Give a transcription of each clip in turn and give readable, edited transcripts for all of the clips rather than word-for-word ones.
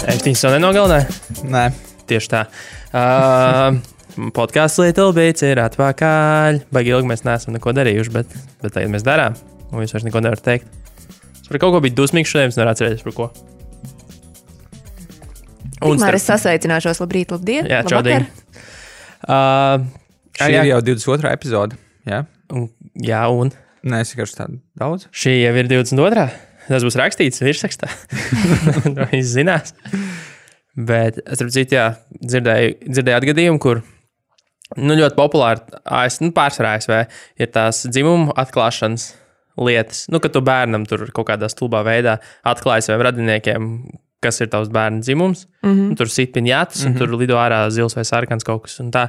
Ēštiņas jau nenogalināja? Nē. Tieši tā. Podkāsts Little Bits ir atpakaļ. Baigi ilgi mēs neesam neko darījuši, bet tagad mēs darām. Un jūs vairs neko nevarat teikt. Es par kaut ko biju dusmīgs šodien, es nevaru atcerēties par ko. Tikmēr es sasveicināšos. Labrīt, labdien. Jā, čaudien. Šī ir jau 22. epizode. Jā, Jā, un nē, es vienkārši tādu daudz. šī jau ir 22. Tas būs rakstīts virsrakstā. To viss zinās. Bet es citu, jā, dzirdēju atgadījumu, kur ļoti populāri pārsvarā ASV ir tās dzimumu atklāšanas lietas. Kad tu bērnam tur kaut kādā stulbā veidā atklāji saviem radiniekiem, kas ir tavs bērna dzimums. Tur sit piņātas, un tur lido ārā zils vai sarkans kaut kas. Un tā.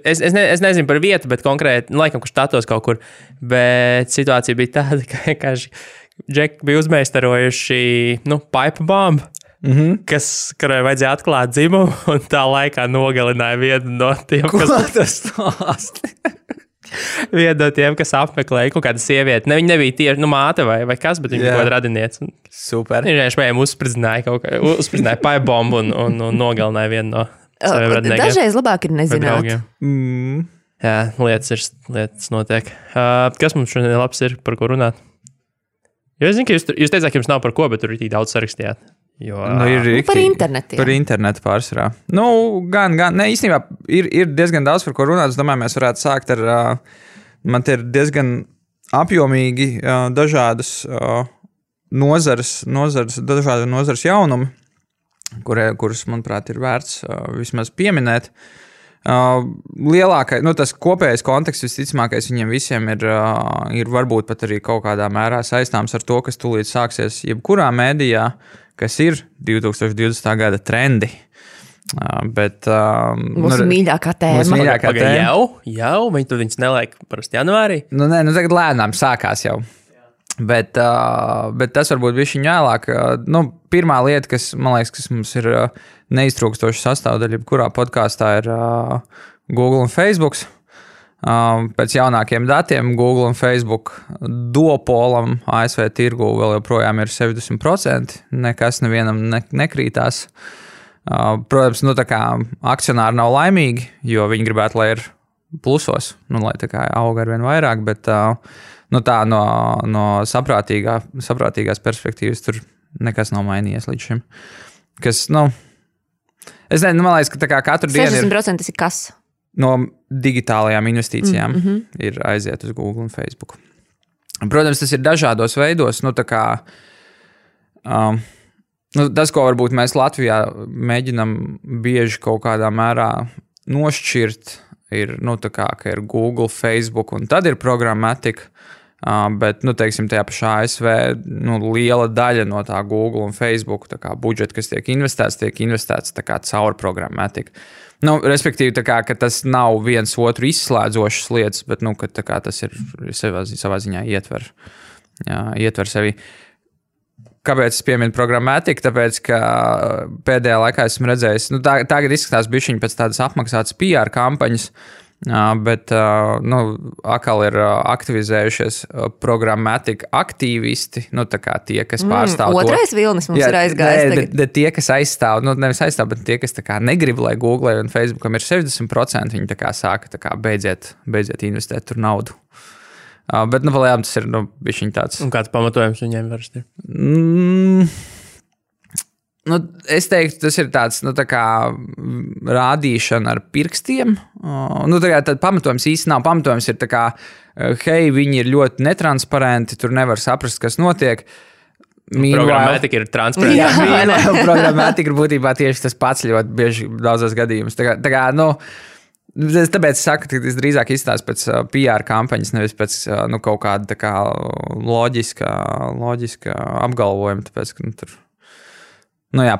Es nezinu par vietu, bet konkrēti, laikam, kur štatos kaut kur. Bet situācija bija tāda, ka Džeki bija uzmeistarojuši pipe bombu, kurai vajadzēja atklāt dzimumu, un tā laikā nogalināja vienu no tiem, vienu no tiem, kas apmeklēja kaut kādu sievieti. Viņa nebija tieši māte vai kas, bet viņa bija kaut kāda radiniece. Super. Viņš viņiem uzspridzināja pipe bombu un nogalināja vienu no saviem radiniekiem. Dažreiz labāk ir nezināt. Jā, lietas notiek. Kas mums šodien labs ir, par ko runāt? Jo es zinu, ka jūs teicāt, ka jums nav par ko, bet tur ir tik daudz sarakstījāt. Par internetu. Par internetu pārsvarā. Gan. Ne, īstenībā ir diezgan daudz, par ko runāt. Es domāju, mēs varētu sākt ar, man te ir diezgan apjomīgi dažādas nozares jaunumi, kurus, manuprāt, ir vērts vismaz pieminēt. Lielākais, tas kopējais konteksts visticamākais viņiem visiem ir varbūt pat arī kaut kādā mērā saistāms ar to, kas tūlīt sāksies jebkurā mēdījā, kas ir 2020. gada trendi. Bet mūsu mīļākā tēma. Jau, viņi tur viņus neliek parasti janvārī. Tagad lēnām sākās jau. Bet tas varbūt bišķiņ vēlāk. Pirmā lieta, kas, man liekas, kas mums ir neiztrūkstoša sastāvdaļa, kurā podkāstā ir Google un Facebook. Pēc jaunākiem datiem Google un Facebook duopolam ASV tirgu vēl joprojām ir 70%. Nekas nevienam nekrītās. Protams, tā kā akcionāri nav laimīgi, jo viņi gribētu, lai ir plusos, lai tā kā auga arvien vairāk, bet tā no saprātīgās perspektīvas tur nekas nav mainījies līdz šim. Kas, es nezinu, man liekas, ka tā kā katru dienu 60% ir kas? No digitālajām investīcijām ir aiziet uz Google un Facebook. Protams, tas ir dažādos veidos, tā kā tas, ko varbūt mēs Latvijā mēģinam bieži kaut kādā mērā nošķirt, ir, tā kā, ka ir Google, Facebook un tad ir programmatika. Bet, teiksim, tajā pašā ASV liela daļa no tā Google un Facebook tā kā budžeta, kas tiek investēts tā kā caur programmatiku. Respektīvi, tā kā, ka tas nav viens otru izslēdzošas lietas, bet, ka tā kā tas ir savā ziņā ietver sevi. Kāpēc es pieminu programmatiku? Tāpēc, ka pēdējā laikā esmu redzējis, tagad izskatās bišķiņi pēc tādas apmaksātas PR kampaņas, bet atkal ir aktivizējušies programmatika aktīvisti, tā kā tie, kas pārstāv Otrais vilnis mums ir aizgājis. Tie, kas aizstāv, nevis aizstāv, bet tie, kas tā kā negrib, lai Google un Facebookam ir 70%, viņi tā kā sāka tā kā beidziet investēt tur naudu. Bet, palējām, tas ir, bišķiņ tāds. Un kāds pamatojums viņiem varsti? Es teiktu, tas ir tāds, tā kā rādīšana ar pirkstiem. Tad pamatojums īsti nav. Pamatojums ir tā kā, hei, viņi ir ļoti netransparenti, tur nevar saprast, kas notiek. Programmatika ir transparenta. Programmatika ir būtībā tieši tas pats ļoti bieži daudzos gadījumus. Tāpēc es saku, ka tas drīzāk izstāsta pēc PR kampaņas, nevis pēc kaut kāda tā kā loģiska apgalvojuma, tāpēc, ka tur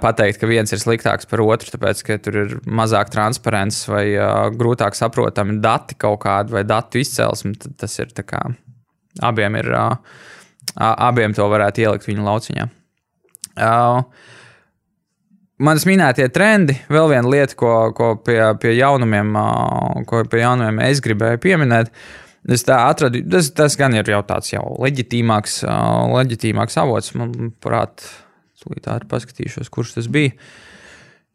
pateikt, ka viens ir sliktāks par otru, tāpēc, ka tur ir mazāk transparents vai grūtāk saprotami dati kaut kādi vai datu izcelsme, tad tas ir tā kā abiem to varētu ielikt viņu lauciņā. Manas minētie trendi, vēl viena lieta, ko pie jaunumiem es gribēju pieminēt, es tā atradu, tas gan ir jau tāds jau leģitīmāks avots, manuprāt, Tūlīt ātri paskatīšos, kurš tas bija.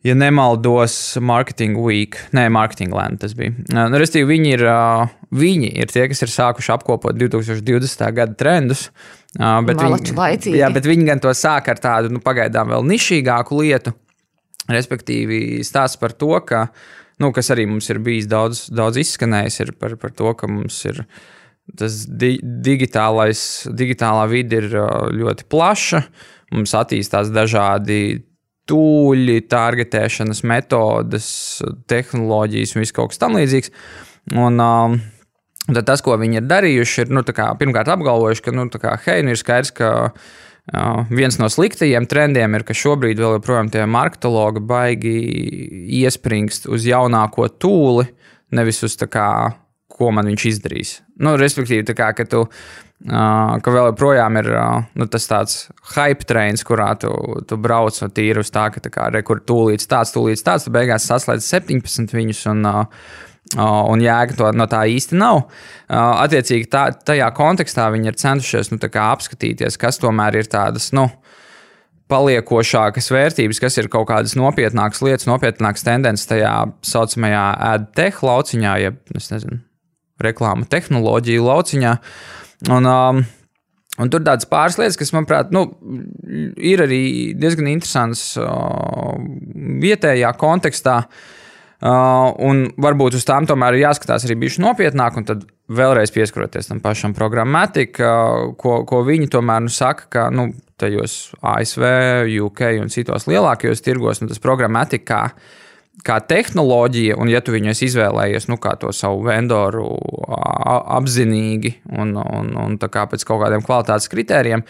Ja nemaldos, Marketing Week, Marketing Land tas bija. Restīvi, viņi ir tie, kas ir sākuši apkopot 2020. Gada trendus. Bet viņi gan to sāk ar tādu pagaidām vēl nišīgāku lietu. Respektīvi, stāsts par to, ka, kas arī mums ir bijis daudz izskanējis, ir par to, ka mums ir tas digitālā vide ir ļoti plaša. Mums attīstās dažādi tūļi, targetēšanas metodas, tehnoloģijas un viss kaut kas tam līdzīgs. Un tad tas, ko viņi ir darījuši, ir pirmkārt apgalvojuši, ka ir skaidrs, ka viens no sliktajiem trendiem ir, ka šobrīd vēl joprojām tie marketologi baigi iespringst uz jaunāko tūli, nevis uz ko man viņš izdarīs. Respektīvi, ka vēl joprojām ir tas tāds hype trains, kurā tu brauc no tīri uz tā, ka rekur tūlīts tāds, tu beigās saslēdz 17 viņus un jēga no tā īsti nav. Attiecīgi tajā kontekstā viņi ir centušies apskatīties, kas tomēr ir tādas, paliekošākas vērtības, kas ir kaut kādas nopietnākas lietas, nopietnākas tendences tajā saucamajā ad tech lauciņā, jeb, reklāma tehnoloģija lauciņā. Un tur tādas pāris lietas, kas, manuprāt, ir arī diezgan interesants vietējā kontekstā, un varbūt uz tām tomēr ir jāskatās arī bišķi nopietnāk, un tad vēlreiz pieskaroties tam pašam Programmatic, ko viņi tomēr saka, ka tajos ASV, UK un citos lielākajos tirgos, tas Programmatic kā tehnoloģija, un ja tu viņu esi izvēlējies, kā to savu vendoru apzinīgi un tā kā pēc kaut kādiem kvalitātes kritērijiem,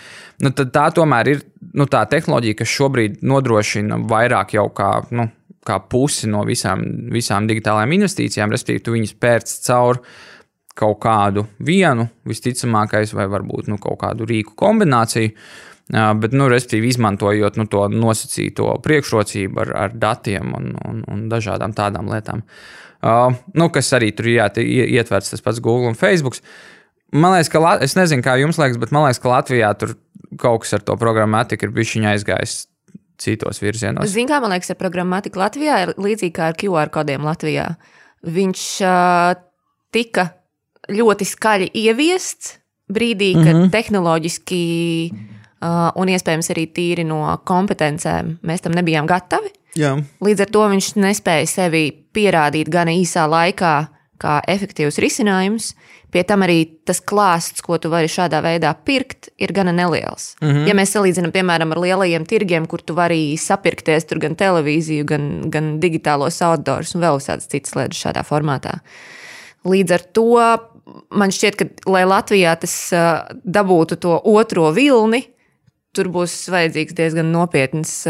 tad tā tomēr ir tā tehnoloģija, kas šobrīd nodrošina vairāk jau kā pusi no visām digitālajām investīcijām, respektīvi tu viņus pērc caur kaut kādu vienu, visticamākais, vai varbūt kaut kādu rīku kombināciju, bet, respektīvi, izmantojot to nosacīto priekšrocību ar datiem un dažādām tādām lietām. Kas arī tur ietverts tas pats Google un Facebook. Man liekas, ka, es nezinu, kā jums liekas, bet man liekas, ka Latvijā tur kaut kas ar to Programmatic ir bišķiņa aizgājis citos virzienos. Zini, kā man liekas, ar Programmatic Latvijā ir līdzīgi kā ar QR kodiem Latvijā. Viņš tika ļoti skaļi ieviests brīdī, kad tehnoloģiski un iespējams arī tīri no kompetencēm mēs tam nebijām gatavi. Jā. Līdz ar to viņš nespēja sevi pierādīt gana īsā laikā kā efektīvs risinājums. Pie tam arī tas klāsts, ko tu vari šādā veidā pirkt, ir gana neliels. Ja mēs salīdzinām, piemēram, ar lielajiem tirgiem, kur tu vari sapirkties tur gan televīziju, gan digitālos outdoors un vēl visādas citas lietas šādā formātā. Līdz ar to man šķiet, ka, lai Latvijā tas dabūtu to otro vilni, tur būs vajadzīgs diezgan nopietns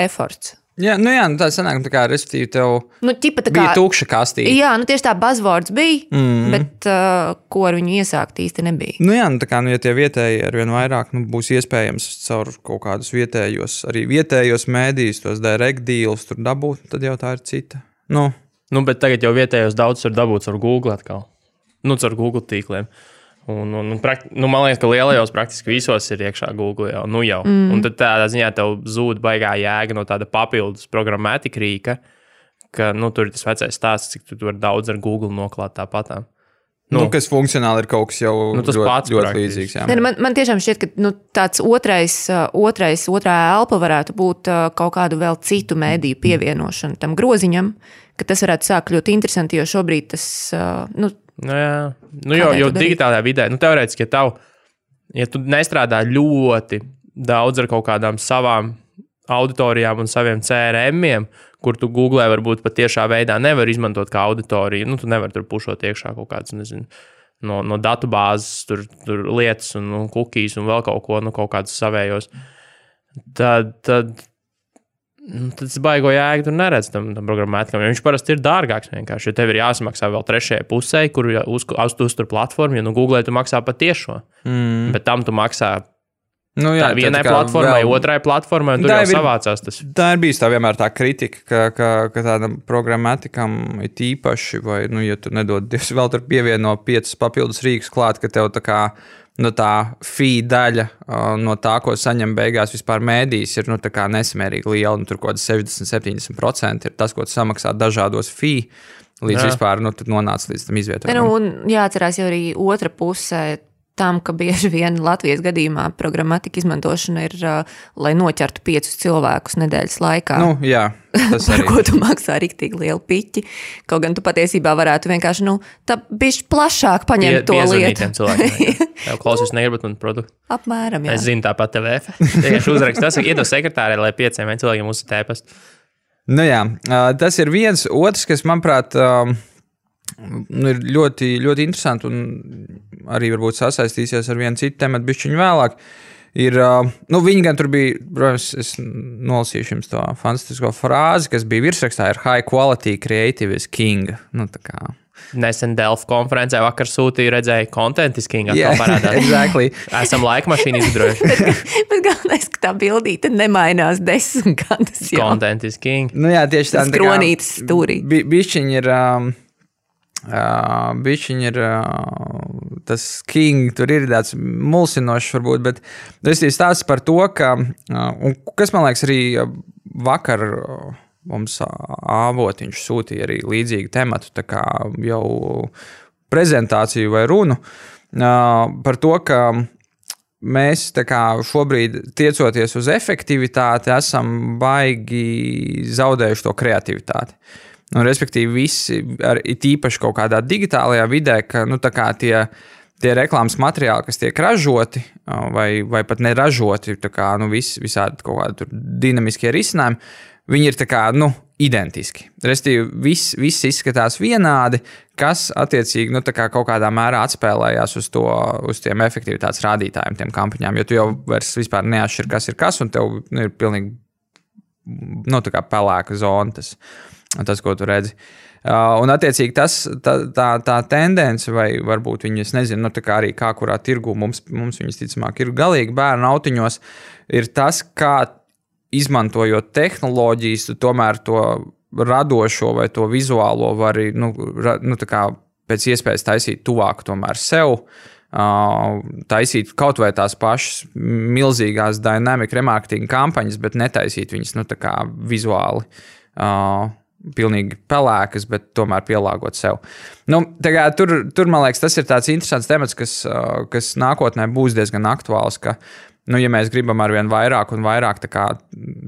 efforts. Jā, tā sanāk, respektīvi tev bija tukša kastīte. Jā, tieši tā buzzwords bija, bet ko ar viņu iesākt īsti nebija. Ja tie vietēji arvien vairāk būs iespējams caur kaut kādus vietējos mēdījus, tos direct deals tur dabūt, tad jau tā ir cita. Bet tagad jau vietējos daudz var dabūt ar Google atkal. Caur Google tīkliem. Man liekas, ka lielajos praktiski visos ir iekšā Google jau. Un tad tādā ziņā tev zūd baigā jēga no tāda papildus Programmatic rīka, ka tur ir tas vecais stāsts, cik tu vari daudz ar Google noklāt tāpatām. Kas funkcionāli ir kaut kas jau ļoti līdzīgs. Man tiešām šķiet, ka tāds otrā elpa varētu būt kaut kādu vēl citu mēdīju pievienošanu tam groziņam, ka tas varētu sākt ļoti interesanti, jo šobrīd tas... jo digitālajā vidē, teorētiski, ja tu nestrādā ļoti daudz ar kaut kādām savām auditorijām un saviem CRM-iem, kur tu Googlē varbūt pat tiešā veidā nevar izmantot kā auditoriju, tu nevar tur pušot iekšā kaut kāds, no datubāzes tur lietas un cookies un vēl kaut ko, kaut kādus savējos. Tad tas baigo jēgu tur neredz tam programmatikam, jo viņš parasti ir dārgāks vienkārši, jo tev ir jāsamaksā vēl trešajai pusē, kur uztur platformu, jo Google tu maksā pat tiešo, bet tam tu maksā vienai platformai, otrai platformai, un tur jau savācās tas. Tā ir bijis tā vienmēr tā kritika, ka tādam programmatikam ir tīpaši, vai, ja tu nedod, vēl tur pievieno 5 papildus rīkus klāt, ka tev tā kā no tā fee daļa, no tā, ko saņem beigās vispār mēdīs, ir tā kā nesamērīgi liela. Tur kaut kāds 60-70% ir tas, ko tu samaksā dažādos fee, līdz vispār nonāca līdz tam izvietojumam. Un jāatcerās jau arī otra puse tam, ka bieži vien Latvijas gadījumā programmatika izmantošana ir, lai noķertu 5 cilvēkus nedēļas laikā. Jā, tas par arī. ko tu maksā riktīgi lielu piķi. Kaut gan tu patiesībā varētu vienkārši, tā bišķi plašāk paņemt to lietu. Tev klausies negribat man produktu. Apmēram, jā. Es zinu tāpat TVF. Vienkārši uzrakst, tas iedo sekretārē, lai 5 cilvēkiem uzsita ēpastu. Jā, tas ir viens. Otrs, kas, manuprāt, ir ļoti, ļoti interesanti un arī varbūt sasaistīsies ar vienu citu tematu bišķiņu vēlāk, ir, viņi gan tur bija, protams, es nolasīšu jums to fantastisko frāzi, kas bija virsrakstā, ir high quality creative is king. Tā kā. Nesen Delft konferencē vakar sūtīju, redzēju, content is king. Yeah, exactly. Esam laikmašīnu izgudrojuši. Bet galvenais, ka tā bildīte nemainās 10 gadus. Content is king. Jā, tieši tā. Skronītas stūrī. Bišķiņi ir tas king, tur ir tāds mulsinošs varbūt, bet es stāstu par to, ka, un kas man liekas arī vakar mums avotiņš sūtīja arī līdzīgu tematu, tā kā jau prezentāciju vai runu, par to, ka mēs tā kā šobrīd tiecoties uz efektivitāti esam baigi zaudējuši to kreativitāti. Respektīvi, visi, tīpaši kaut kādā digitālajā vidē, ka tie reklāmas materiāli, kas tiek ražoti vai pat neražoti, visādi kaut kādi dinamiskie risinājumi, viņi ir identiski. Respektīvi, viss izskatās vienādi, kas attiecīgi kaut kādā mērā atspēlējās uz tiem efektivitātes rādītājiem, tiem kampaņām, jo tu jau vairs vispār neatšķir, kas ir kas, un tev ir pilnīgi pelēka zona tas, ko tu redzi. Un, attiecīgi, tā tendence, vai varbūt viņi, es nezinu, arī kā kurā tirgu mums viņas ticamāk ir galīgi bērnu autiņos, ir tas, kā izmantojot tehnoloģijas, tu tomēr to radošo vai to vizuālo vari, pēc iespējas taisīt tuvāk tomēr sev, taisīt kaut vai tās pašas milzīgās dynamic remarketing kampaņas, bet netaisīt viņas, vizuāli, pilnīgi pelēkas, bet tomēr pielāgot sev. Tur, man liekas, tas ir tāds interesants temats, kas nākotnē būs diezgan aktuāls, ka, ja mēs gribam arvien vairāk un vairāk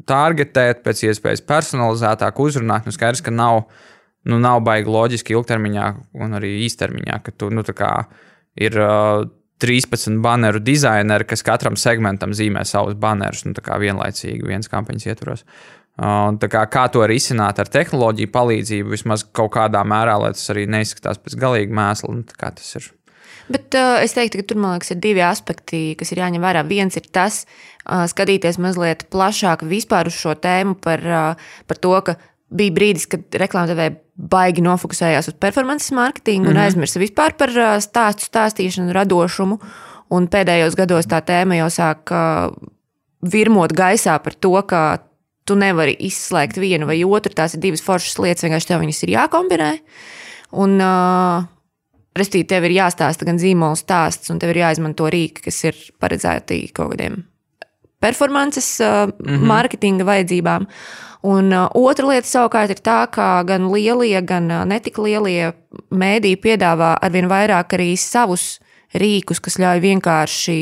targetēt, pēc iespējas personalizētāk uzrunāt, skaidrs, ka nav baigi loģiski ilgtermiņā un arī īstermiņā, ka tu, ir 13 baneru dizaineri, kas katram segmentam zīmē savus banerus, vienlaicīgi viens kampaņas ietvaros. Kā to risināt ar tehnoloģiju palīdzību, vismaz kaut kādā mērā, lai tas arī neizskatās pēc galīga mēsla, kā tas ir. Bet es teiktu, ka tur, man liekas, ir 2 aspekti, kas ir jāņem vērā. Viens ir tas, skatīties mazliet plašāk vispār uz šo tēmu par to, ka bija brīdis, kad reklāmdevēji baigi nofokusējās uz performances marketingu un aizmirsa vispār par stāstīšanu, radošumu. Un pēdējos gados tā tēma jau sāk virmot gaisā par to, ka tu nevari izslēgt vienu vai otru, tās ir 2 foršas lietas, vienkārši tev viņas ir jākombinē. Un, restīvi, tev ir jāstāsta gan zīmola stāsts, un tev ir jāizmanto rīki, kas ir paredzēti kaut kādiem performances marketinga vajadzībām. Un otra lieta savukārt ir tā, ka gan lielie, gan netik lielie mēdī piedāvā arvien vairāk arī savus rīkus, kas ļauj vienkārši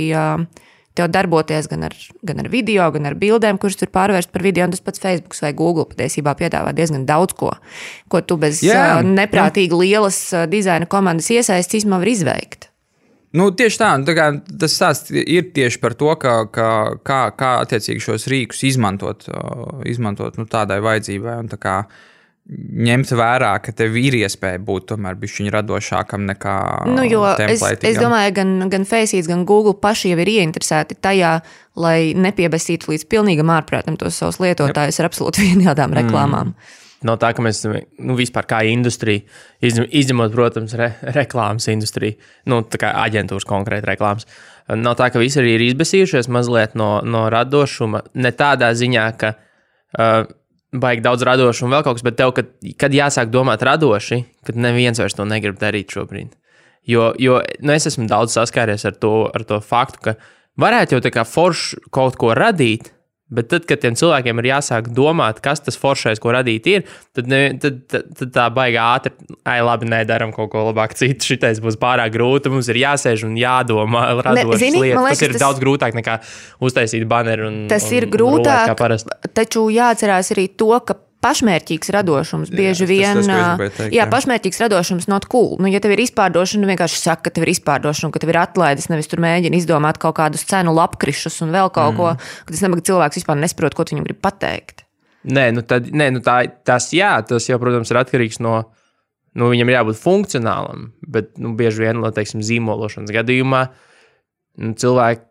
tev darboties gan ar video, gan ar bildēm, kuras tur pārvērst par video, un tas pats Facebook vai Google patiesībā piedāvā diezgan daudz ko tu bez neprātīgi lielas dizaina komandas iesaistes īstenībā var izveikt. Tieši tā, tas stāsts ir tieši par to, kā attiecīgi šos rīkus izmantot tādai vajadzībai un ņemt vērā, ka tev ir iespēja būt tomēr bišķiņ radošākam nekā templētīgam. Es domāju, gan Faceit, gan Google paši jau ir ieinteresēti tajā, lai nepiebesītu līdz pilnīgam ārprātam tos savus lietotājus ar absolūti vienādām reklāmām. Nav tā, ka mēs vispār kā industrija, izņemot, protams, reklāmas industriju, tā kā aģentūras konkrēti reklāmas, nav tā, ka visi arī ir izbesījušies mazliet no radošuma, ne tādā ziņā, ka baigi daudz radošu un vēl kaut kas, bet tev, kad jāsāk domāt radoši, kad neviens vairs to negrib darīt šobrīd. Jo es esmu daudz saskāries ar to faktu, ka varētu jau tā kā forši kaut ko radīt, bet tad, kad tiem cilvēkiem ir jāsāk domāt, kas tas foršais, ko radīt ir, tad tā baigā ātri, labi, nedaram kaut ko labāk citu, šitais būs pārāk grūti, mums ir jāsēž un jādomā radošas lietas. Tas ir daudz grūtāk nekā uztaisīt baneru tas ir grūtāk, taču jāatcerās arī to, ka pašmērķīgs radošums bieži vien. Pašmērķīgs radošums not cool. Ja tev ir izpārdošana, vienkārši saka, ka tev ir izpārdošana, ka tev ir atlaides, nevis tur mēģina izdomāt kaut kādus cenu lapkrišus un vēl kaut ko, ka tas nabaga cilvēks vispār nesaprot, ko viņam grib pateikt. Tas jau, protams, ir atkarīgs no, viņam ir jābūt funkcionālam, bet, bieži vien, teiksim, zīmološanas gadījumā, cilvēki,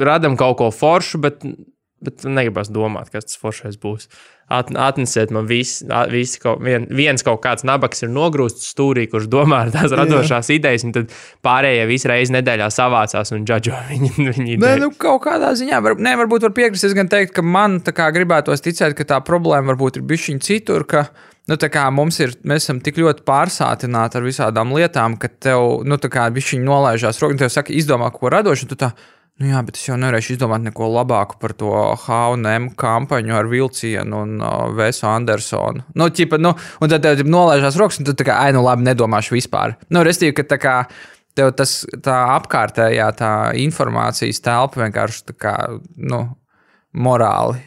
radam kaut ko foršu, bet negribas domāt, kas tas foršais būs. Atnesiet man viens kaut kāds nabaks ir nogrūsts stūrī, kurš domā ar tās radošās idejas, un tad pārējie visu reizi nedēļā savācās un džadžo viņi idejas. Kaut kādā ziņā, varbūt var piekrist, es gan teikt, ka man tā kā gribētos ticēt, ka tā problēma varbūt ir bišķiņ citur, ka tā kā mēs esam tik ļoti pārsātināti ar visādām lietām, ka tev, tā kā bišķiņ nolaižās roka, un tev saka, izdomā ko radošu, un tu tā, bet es jau nevarēšu izdomāt neko labāku par to H&M kampaņu ar vilcienu un Vesu Andersonu. Un tad tev nolaižās rokas, un tu tā kā, labi, nedomāšu vispār. Restīvi, ka tā kā tev tā apkārtējā tā informācijas telpa vienkārši tā kā, morāli.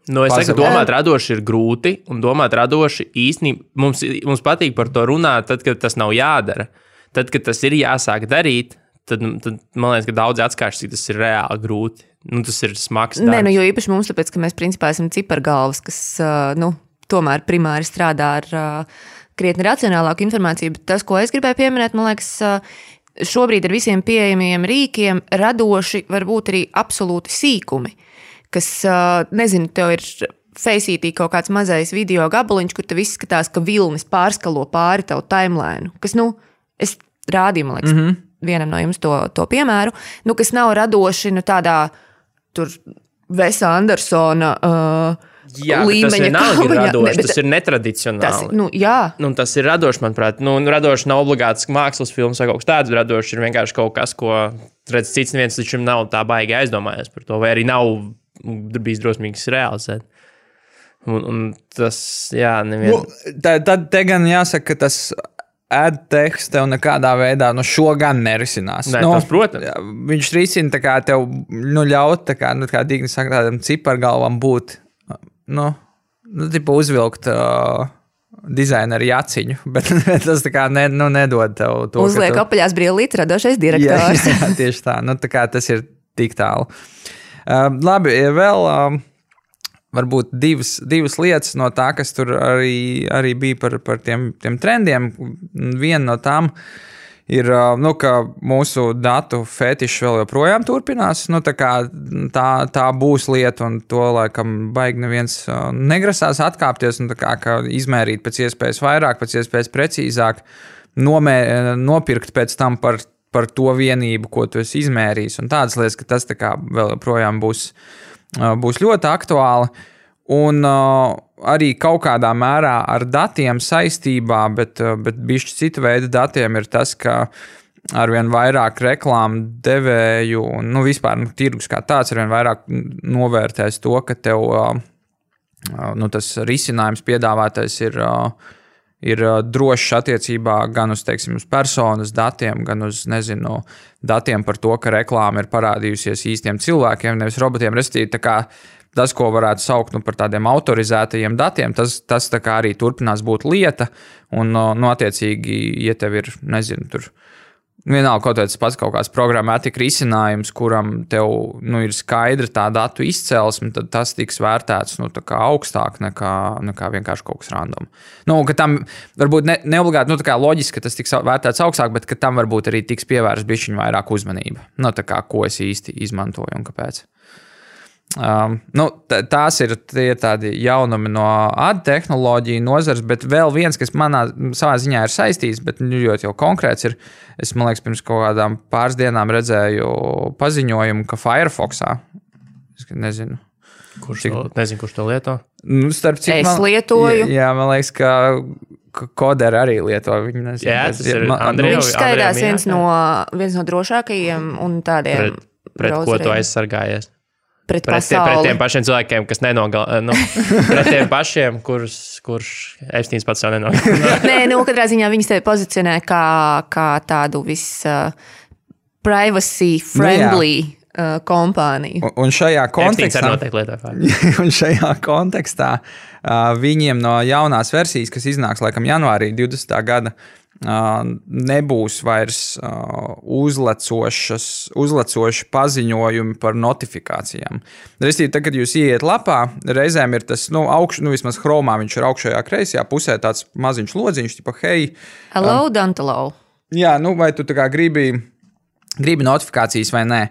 Es saku, domāt radoši ir grūti, un domāt radoši īstenībā mums patīk par to runāt, tad, kad tas nav jādara. Tad, kad tas ir jāsāk darīt, tad man liekas, ka daudzi atskaiš, cik tas ir reāli grūti. Tas ir smags darbs. Jo īpaši mums, tāpēc, ka mēs principā esam cipargalvas, kas, tomēr primāri strādā ar krietni racionālāku informāciju, bet tas, ko es gribēju pieminēt, man liekas, šobrīd ar visiem pieejamiem rīkiem radoši var būt arī absolūti sīkumi, kas, nezinu, tev ir Faceitī kaut kāds mazais video gabaliņš, kur tev izskatās, ka vilnis pārskalo pāri tavu timeline, kas, es rādīju, man liekas, vienam no jums to piemēru, kas nav radoši tādā tur Vesa Andersona līmeņa kampaņā. Tas ir netradicionāli. Tas ir radoši, manuprāt. Radoši nav obligāts mākslas filmas vai kaut kas tāds, radoši ir vienkārši kaut kas, ko redz cits neviens līdz šim nav tā baigi aizdomājies par to, vai arī nav bijis drosmīgs realizēt. Un tas, neviens. Tad te gan jāsaka, ka tas AdTechs tev nekādā veidā šo gan nerisinās. Tas, protams. Viņš risina tā kā tev ļaut, tā kā Digni saka, tādam cipargalvam būt, uzvilkt dizaineru jaciņu, bet tas tā kā nedod tev to. Uzliek apaļās brillītes radošais direktors. Jā, tieši tā. Tā kā tas ir tik tālu. Labi, vēl varbūt divas lietas no tā, kas tur arī bija par tiem trendiem. Viena no tām ir, ka mūsu datu fetišs vēl joprojām turpinās. Tā būs lieta, un to laikam baigi neviens negrasās atkāpties, un ka izmērīt pēc iespējas vairāk, pēc iespējas precīzāk, nopirkt pēc tam par to vienību, ko tu esi izmērījis, un tādas lietas, ka tas vēl joprojām būs ļoti aktuāli, un arī kaut kādā mērā ar datiem saistībā, bet bišķi cita veida datiem ir tas, ka arvien vairāk reklāmu devēju un vispār tirgus kā tāds arvien vairāk novērtēs to, ka tev tas risinājums piedāvātais ir drošs attiecībā gan uz, teiksim, uz personas datiem, gan uz, datiem par to, ka reklāma ir parādījusies īstiem cilvēkiem, nevis robotiem. Restīvi, tas, ko varētu saukt par tādiem autorizētajiem datiem, tas arī turpinās būt lieta, un, attiecīgi, ja tev ir, tur vienalga kaut kāds programmatika risinājums, kuram tev ir skaidra tā datu izcelsme, tad tas tiks vērtēts augstāk nekā vienkārši kaut kas random. Ka tam varbūt neobligāti, loģiski, ka tas tiks vērtēts augstāk, bet ka tam varbūt arī tiks pievērsta bišķiņ vairāk uzmanība. Ko es īsti izmantoju un kāpēc. Tās ir tādi jaunumi no ad tehnoloģiju nozares, bet vēl viens, kas savā ziņā ir saistīts, bet ļoti jau konkrēts ir, es, man liekas, pirms kaut kādām pāris dienām redzēju paziņojumu, ka Firefoxā, es nezinu. Kurš to lieto? Es lietoju. Jā, man liekas, ka koderi arī lieto. Viņi nezinu, Jā, tas ir Andrejam. Viņš skaidās viens no drošākajiem un tādiem pret ko tu aizsargājies? Pret tiem pašiem cilvēkiem, kas pret tiem pašiem, kurš Epsteins pats jau nenogalina. Nē, katrā ziņā viņas tevi pozicionē kā tādu privacy friendly kompāniju. Un šajā kontekstā, un šajā kontekstā viņiem no jaunās versijas, kas iznāks laikam janvārī 20. gada, nebūs vairs uzlecoši paziņojumi par notifikācijām. Restīvi, tad, kad jūs ieiet lapā, reizēm ir tas, vismaz Chromā viņš ir augšējā kreisajā pusē tāds maziņš lodziņš, tipa, hei. Hello, don't allow. Jā, vai tu tā kā gribi notifikācijas vai nē.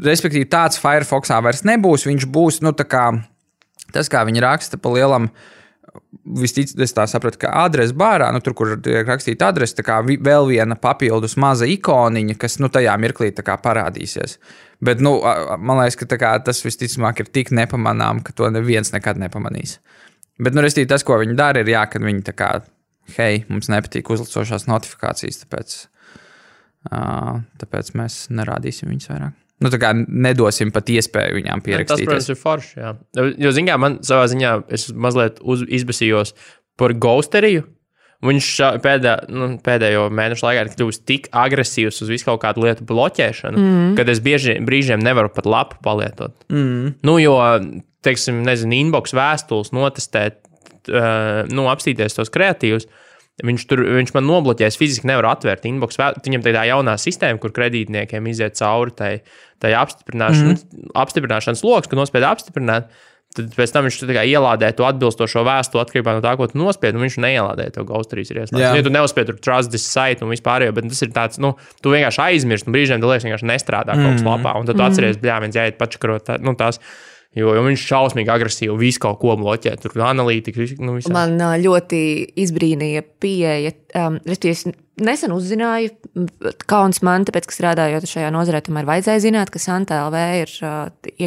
Respektīvi, tāds Firefoxā vairs nebūs, viņš būs, tas, kā viņi raksta pa lielam, es tā sapratu, ka adrese bārā, tur, kur tiek rakstīta adrese, tā kā vēl viena papildus maza ikoniņa, kas, tajā mirklī tā kā parādīsies. Bet, man liekas, ka tas visticamāk ir tik nepamanām, ka to neviens nekad nepamanīs. Bet, restīvi, tas, ko viņi dara, ir kad viņi tā kā, hei, mums nepatīk uzlicošās notifikācijas, tāpēc mēs nerādīsim viņus vairāk. Tā kā nedosim pat iespēju viņām pierakstīties. Tas, protams, ir forši, jā. Jo, man savā ziņā, es mazliet izbesījos par ghosteriju. Viņš pēdējo mēnešu laikā ir kļuvis tik agresīvs uz visu kaut kādu lietu bloķēšanu, kad es brīžiem nevaru pat lapu palietot. Jo, teiksim, inbox vēstules notestēt, apstīties tos kreatīvus, viņš man nobloķēs, fiziski nevar atvērt inbox. Viņam tā jaunā sistēma, kur kredītniekiem iziet cauri tai apstiprināšanas loks, kad nospied apstiprināt, tad pēc tam viņš ielādē to atbilstošo vēstuli atkarībā no tā, ko tu nospied, un viņš neielādē to ghosterijas ir ieslēgts. Ja tu neuzspied tur trust this site un vispārējo, bet tas ir tāds, tu vienkārši aizmirst, un brīžiem tu liekas vienkārši nestrādā kaut kas lapā, un tad tu atceries, viens jāiet pačakarot, tās. Jo viņš šausmīgi agresīvi visu kaut ko bloķē, tur analītika, visā. Man ļoti izbrīnīja pieeja. Es nesen uzzināju, kauns man, tāpēc, ka strādājot šajā nozarē, tomēr vajadzēja zināt, ka Santa LV ir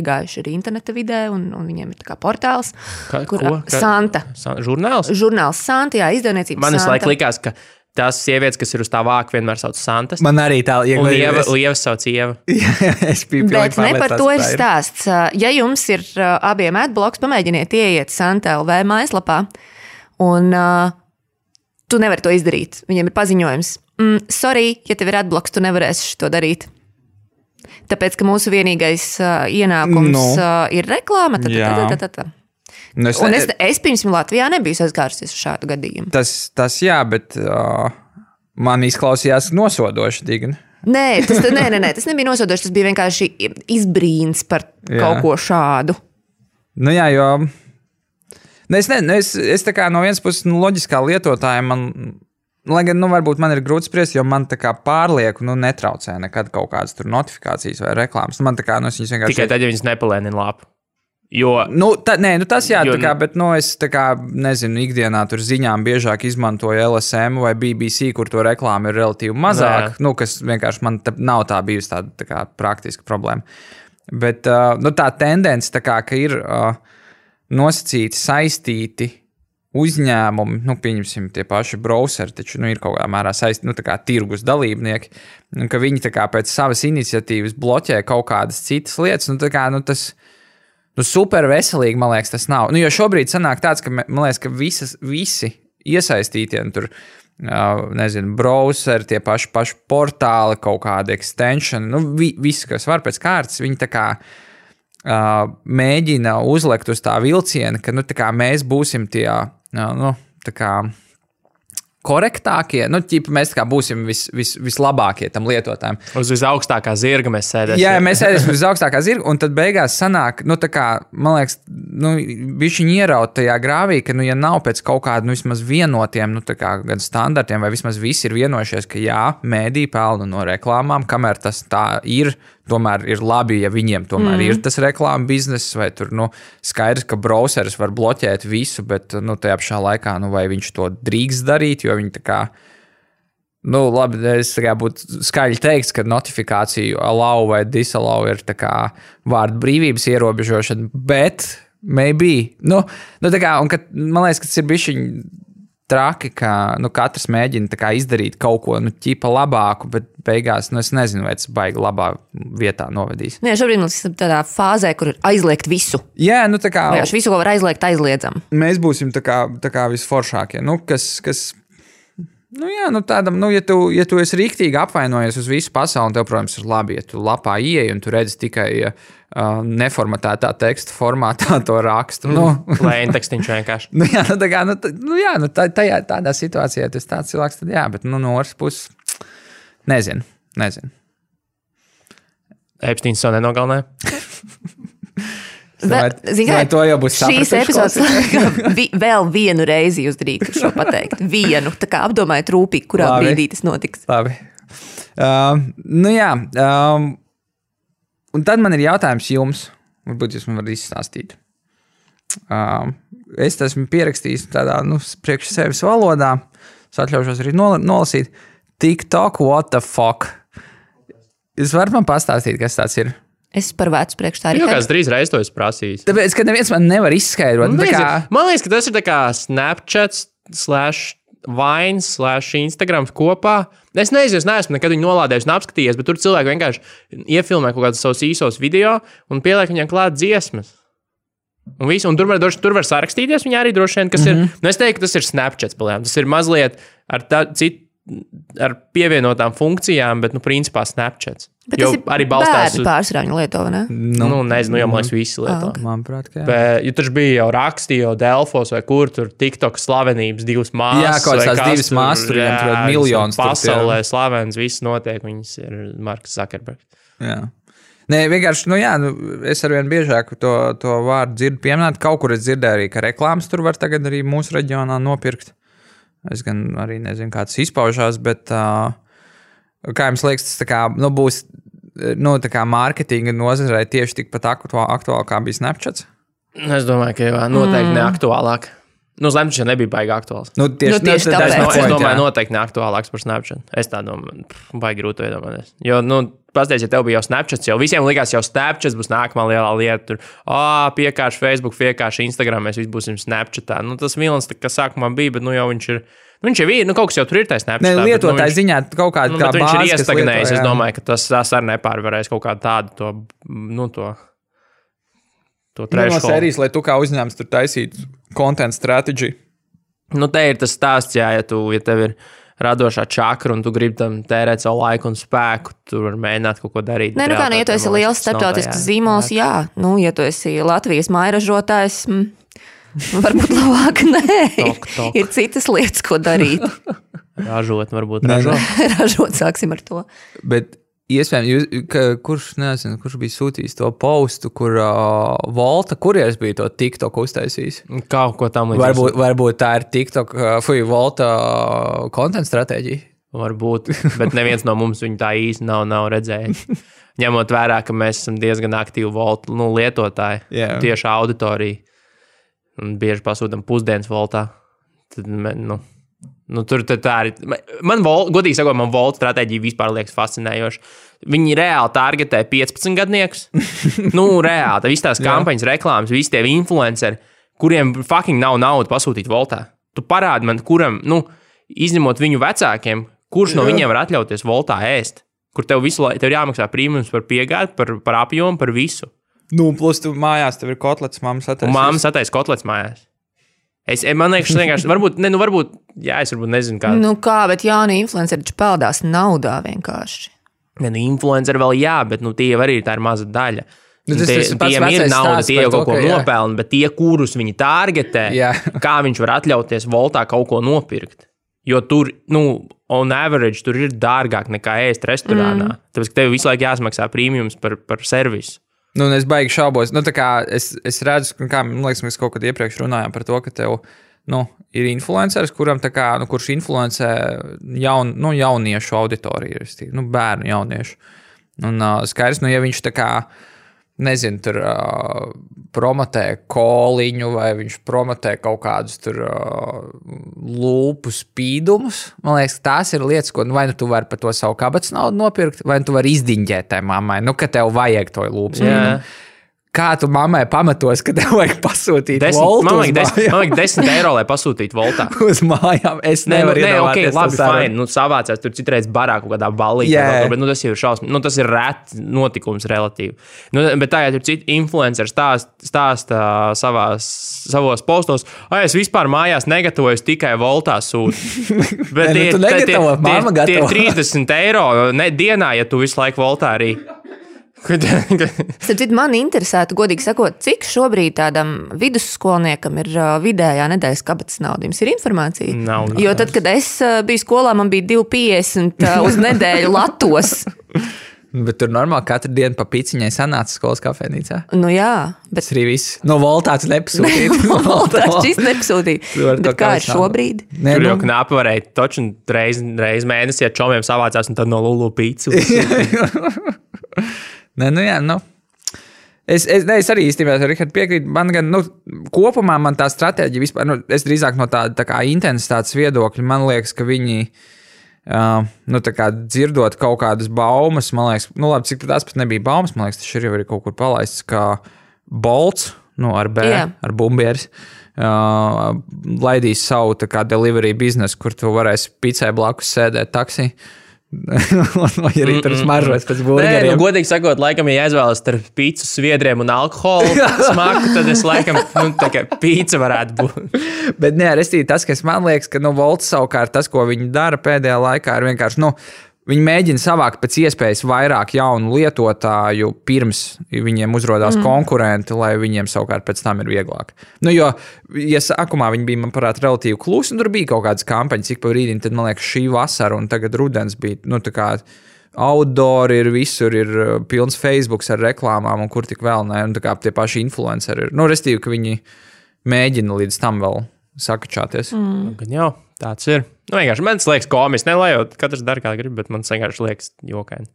iegājuši arī interneta vidē, un viņiem ir tā kā portāls. Santa. Žurnāls? Žurnāls Santa, jā, izdevniecības Santa. Man visu laiku likās, ka tās sievietes, kas ir uz tā vāka, vienmēr sauc Santas. Man arī tā iegājas. Un Lieva sauc Ieva. Bet ne par to ir stāsts. Ja jums ir abiem adblocks, pamēģiniet ieiet Santa LV mājaslapā, un tu nevari to izdarīt. Viņiem ir paziņojums. Sorry, ja tev ir adblocks, tu nevarēsi to darīt. Tāpēc, ka mūsu vienīgais ienākums ir reklāma. Es pirms Latvijā nebiju saskārusies ar šādu gadījumu. Tas jā, bet man izklausījās nosodoši digni. Nē, tas nebija nosodoši, tas bija vienkārši izbrīns par kaut ko šādu. Jā, jo es tā kā no vienas puses loģiskā lietotāja lai gan, varbūt man ir grūti spriest, jo man tā kā pārlieku, netraucē nekad kaut kādas tur notifikācijas vai reklāmas. Man tā kā, es viņas vienkārši... Tikai tad, ja viņas nepalēnina lapu. Jo, tas jā, bet es nezinu, ikdienā tur ziņām biežāk izmantoju LSM vai BBC, kur to reklāmu ir relatīvi mazāk, kas vienkārši man nav tā bijusi tāda kā praktiska problēma. Bet tā tendence, ka ir nosacīti, saistīti uzņēmumi, pieņemsim tie paši browseri, taču ir kaut kādā mērā saistīti, tirgus dalībnieki, un ka viņi pēc savas iniciatīvas bloķē kaut kādas citas lietas, tas super veselīgi, man liekas, tas nav. Jo šobrīd sanāk tāds, ka, man liekas, ka visi iesaistītie, tur, browseri, tie paši portāli, kaut kādi extension, visi, kas var pēc kārtas, viņi tā kā mēģina uzlekt uz tā vilciena, ka, tā kā mēs būsim tie, tā kā korektākie, mēs kā būsim vislabākie tam lietotājiem. Uz visaugstākā zirga mēs sēdēsim. Jā, mēs sēdēsim uz visaugstākā zirga, un tad beigās sanāk, man liekas, bišķiņi ieraut tajā grāvī, ka, ja nav pēc kaut kāda, vismaz vienotiem, gan standartiem, vai vismaz visi ir vienojušies, ka jā, mēdī pelna no reklāmām, kamēr tas tā ir, tomēr ir labi, ja viņiem tomēr ir tas reklāma bizness, vai tur, skaidrs, ka browseris var bloķēt visu, bet, tajā pašā laikā, vai viņš to drīkst darīt, jo viņi tā kā, labi, es tā kā būtu skaļi teiks, ka notifikāciju allow vai disallow ir tā kā vārdu brīvības ierobežošana, bet maybe, tā kā, un kad, man liekas, ka tas ir bišķiņ traki, ka katrs mēģina izdarīt kaut ko ķipa labāku, bet beigās es nezinu, vai tas baigi labā vietā novedīs. Nē, šobrīd mums ir tādā fāzē, kur ir aizliegt visu. Jā, visu, ko var aizliegt, aizliedzam. Mēs būsim tā kā visforšākie. Tādam, ja tu esi rīktīgi apvainojies uz visu pasauli, tev, protams, ir labi, ja tu lapā ieej un tu redzi tikai neformatētā teksta formātā to rakstu. Plain tekstiņš vienkārši. Tādā situācijā tas tāds cilvēks, tad jā, bet no otras puses nezinu. Epsteins savu nenogalināja. Vai to jau būs sapratuši? Šīs epizodes vēl vienu reizi jūs drīkst šo pateikt. Vienu, tā kā apdomājiet rūpīgi, kurā brīdī tas notiks. Labi. Un tad man ir jautājums jums. Varbūt jūs man varat izstāstīt. Es esmu pierakstījis tādā, priekš sevis valodā. Es atļaušos arī nolasīt. TikTok, what the fuck? Jūs varat man pastāstīt, kas tāds ir? Es par vecu priekš tā arī. Jā, kāds 3 reizes to es prasīju. Tāpēc, ka neviens man nevar izskaidrot. Man liekas, ka tas ir tā kā Snapchat / Instagram kopā. Es neesmu nekad viņu nolādējis un apskatījies, bet tur cilvēki vienkārši iefilmē kaut kādus savus īsos video un pieliek viņam klāt dziesmas. Un tur var sarakstīties viņa arī droši vien, kas ir. Es teiktu, ka tas ir Snapchat palējām. Tas ir mazliet ar pievienotām funkcijām, bet, principā Snapchat. Bet tas ir arī balstās uz pārsvarā viņa lieto, vai ne? Nezinu, jau man liekas visi lieto. Manuprāt, ka jā. Bet, jo tur bija jau rakstīja, jau Delfos vai kur tur TikTok slavenības 2 māsas. Jā, kaut kāds 2 māsas, tur viņam tur miljonus. Pasaulē slavens, viss notiek, viņas ir Marks Zuckerbergs. Jā. Nē, vienkārši, es arvien biežāk to vārdu dzirdu pieminēt. Kaut kur es dzirdēju arī, ka reklāmas tur var tagad arī mūsu reģionā nopirkt. Es gan arī nezinu, kā tas izpaužās, bet kā jums liekas, tas tā kā, būs tā kā mārketinga nozarei tieši tikpat aktuāli, kā bija Snapchat? Es domāju, ka noteikti neaktuālāk. Snapchat nebija baigi aktuāls. Tieši tāpēc. Es domāju, noteikti neaktuālāks par Snapchat. Es tā domāju, baigi grūti iedomāties. Jo, pastāstiet, ja tev bija jau Snapchat, jau visiem likās, jau Snapchat būs nākamā lielā lieta. Tur, piekārši Facebook, piekārši Instagram, mēs visi būsim Snapchatā. Tas vilns, kas sākumā bija, bet jau viņš ir. Viņš jau ir, kaut kas jau tur ir tajā Snapchatā. Ne, lietotāji ziņā kaut kāda kā bāze, viņš ir iestagnējis. Es domāju, ka tas arī nepārvarēs kaut kādu tādu to trešo. No sērijas, lai tu kā uzņēmums tur taisītu content strategy. Te ir tas stāsts, ja tev ir radošā čakra un tu gribi tam tērēt savu laiku un spēku, tur var mēģināt kaut ko darīt. Nē, ja tu esi liels starptautisks zīmols, jā. Ja tu esi Latvijas mairažotājs, varbūt labāk nē. Ir citas lietas, ko darīt. Ražot, varbūt ražot, sāksim ar to. Bet iespējams, kurš bija sūtījis to postu, kur Volta kurjers bija to TikTok uztaisījis? Kaut ko tam līdzīgs. Varbūt tā ir TikTok, Volta content stratēģija? Varbūt, bet neviens no mums viņu tā īsti nav redzējis. Ņemot vērā, ka mēs esam diezgan aktīvi Volta lietotāji, tieši auditorija. Un bieži pasūtam pusdienas Voltā. Tad, tur tā arī. Godīgi sakot, man Volta stratēģija vispār liekas fascinējoša. Viņi reāli targetē 15 gadniekus. Reāli. Visas tās kampaņas, reklāmas, visi tie influenceri, kuriem fucking nav nauda pasūtīt Voltā. Tu parādi man, kuram, izņemot viņu vecākiem, kurš no viņiem var atļauties Voltā ēst. Kur tev ir jāmaksā prīmums par piegādi, par apjomu, par visu. Plus tu mājās, tev ir kotlets, mammas attaisīs. Mammas attaisīs kotlets mājās. Man liekas, vienkārši, varbūt, es varbūt nezinu, kā. Kā, bet jauni influenceri taču peldās naudā vienkārši. Influenceri vēl bet tie jau arī tā ir maza daļa. Tiem ir nauda, tie jau kaut ko nopelna, bet tie, kurus viņi targetē, kā viņš var atļauties Voltā kaut ko nopirkt. Jo tur, on average, tur ir dārgāk nekā ēst restorānā. Tāpēc, ka tev visu laiku jāsmaksā prīmjums par servisu. Es baigi šaubos. Es redzu, kā man liekas, mēs kaut kad iepriekš runājām par to, ka tev ir influenceris, kuram kurš influencē jauniešu auditoriju, bērnu jauniešu. Un skaidrs, ja viņš nezinu, tur promotē koliņu vai viņš promotē kaut kādus tur lūpu spīdumus. Man liekas, tās ir lietas, ko vai tu vari par to savu kabatas naudu nopirkt, vai tu vari izdiņģēt tai mammai, ka tev vajag to lūpu spīdumu. Kā tu mammai pamatos, ka tev vajag pasūtīt 10, voltu man uz vajag 10 eiro, lai pasūtītu voltā. uz mājām? Es nevaru iedomāties. Labi, fine. Nu, savācās tur citreiz barā kaut kādā ballītē. Jā. Bet tas jau ir šausmas. Nu, tas ir rēt notikums relatīvi. Nu, bet tā, ja tur citi influenceri stāsta savos postos, es vispār mājās negatavojos, tikai voltā sūtu. Bet tie 30 eiro dienā, ja tu visu laiku voltā arī. Man interesētu, godīgi sakot, cik šobrīd tādam vidusskolniekam ir vidējā nedēļas kabatas nauda. Jums ir informācija? Nav. Jo tad, kad es biju skolā, man bija 2,50 uz nedēļu latos. Bet tur normāli katru dienu pa piciņai sanāca skolas kafejnīcā. Nu jā. Bet... Tas arī viss. No voltāts nepasūtīt. Voltāts šis nepasūtīt. Bet kā ir šobrīd? Tur jau knapi varēja toču reiz mēnesī ar čomiem savācās un tad no Lulu pīcu. Nē, nu jā, nu. Es arī īstenībā Richard piekrītu. Man gan, kopumā man tā stratēģija vispār, es drīzāk no tā kā intensitātes viedokļa, man liekas, ka viņi, tā kā dzirdot kaut kādas baumas, man liekas, labi, cik tās pat nebija baumas, man liekas, tas ir jau arī kaut kur palaists, kā Bolts, ar B, ar bumbieris, laidīs savu tā kā delivery biznesu, kur tu varēsi picē blakus sēdēt taksī. Vai arī tur smaržots pēc burgeriem. Godīgi sakot, laikam, ja aizvēlas starp pīcu, sviedriem un alkoholu smaku, tad es laikam, tā kā pīca varētu būt. Bet restīvi tas, kas man liekas, ka, Volts savukārt tas, ko viņi dara pēdējā laikā, ir vienkārši, viņi mēģina savākt pēc iespējas vairāk jaunu lietotāju, pirms viņiem uzrodās konkurenti, lai viņiem savukārt pēc tam ir vieglāk. Jo, ja sākumā viņi bija, manuprāt, relatīvi klusi, un tur bija kaut kādas kampaņas, cik pa brīdim, tad, man liekas, šī vasara un tagad rudens bija, tā kā outdoor ir, visur ir pilns Facebooks ar reklāmām, un kur tik vēl ne, un tā kā tie paši influenceri ir. Restīvi, ka viņi mēģina līdz tam vēl sakačāties. Gan jau, tāds ir. Vienkārši man liekas komiski, ne lai jau katrs dara kā grib, bet man vienkārši liekas jokaini.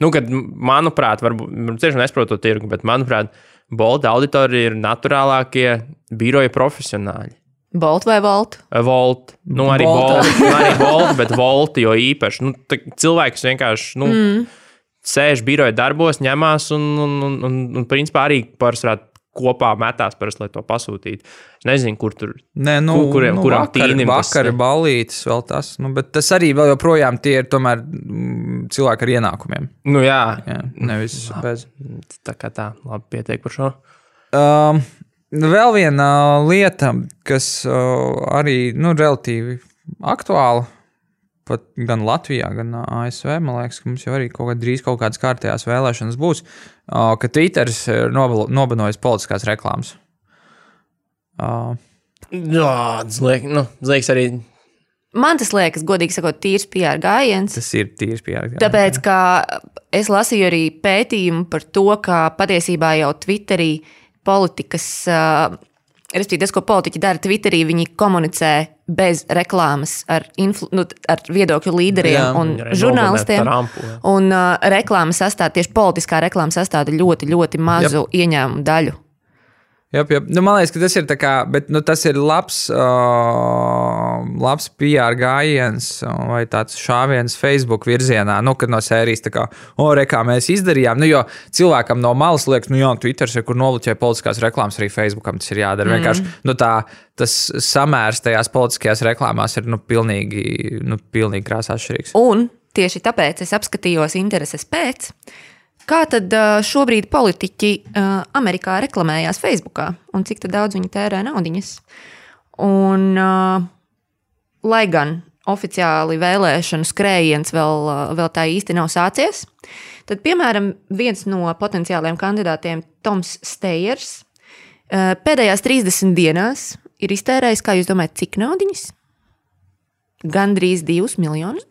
Kad, manuprāt, varbūt tieši nesprotu to tirgu, bet, manuprāt, Bolta auditorija ir naturālākie biroja profesionāļi. Bolt vai Volt? Volt. Arī Bolt, bet Volt jo īpaši. Cilvēks vienkārši, sēž biroja darbos, ņemās un principā arī pārsvarā kopā metās parasti, lai to pasūtītu. Es nezinu, kur tur, kuram tīnim tas. Vakar ballītes vēl tas, bet tas arī vēl joprojām tie ir tomēr cilvēki ar ienākumiem. Jā. Nevis bez. Tā kā tā, labi pietiek par šo. Vēl viena lieta, kas arī, relatīvi aktuāla, pat gan Latvijā, gan ASV, man liekas, ka mums jau arī drīz kaut kādas kārtējās vēlēšanas būs, ka Twitters ir nobanojis politiskās reklāmas. Tas liekas arī. Man tas liekas, godīgi sakot, tīrs PR gājiens. Tas ir tīrs PR gājiens. Tāpēc, ka es lasīju arī pētījumu par to, ka patiesībā jau Twitterī politikas, respektīvi tas, ko politiķi dara Twitterī, viņi komunicē bez reklāmas ar viedokļu līderiem un žurnālistiem. Un reklāma sastāv, tieši politiskā reklāma sastāv ļoti, ļoti mazu ieņēmumu daļu. Jop. Man liekas, ka tas ir tā kā, bet tas ir labs PR gājiens vai tāds šāviens Facebook virzienā, kad no sērijas tā kā, kā mēs izdarījām, jo cilvēkam no malas liekas, Twitters ir, kur noluķē politiskās reklāmas, arī Facebookam tas ir jādara. Vienkārši, tas samērs tajās politiskajās reklāmās ir, pilnīgi krāsā atšķirīgs. Un tieši tāpēc es apskatījos intereses pēc, kā tad šobrīd politiķi Amerikā reklamējās Facebookā un cik daudz viņi tērē naudiņas. Un, lai gan oficiāli vēlēšanu skrējiens vēl tā īsti nav sācies, tad, piemēram, viens no potenciāliem kandidātiem, Toms Steyers, pēdējās 30 dienās ir iztērējis, kā jūs domājat, cik naudiņas? Gandrīz $2 miljonus.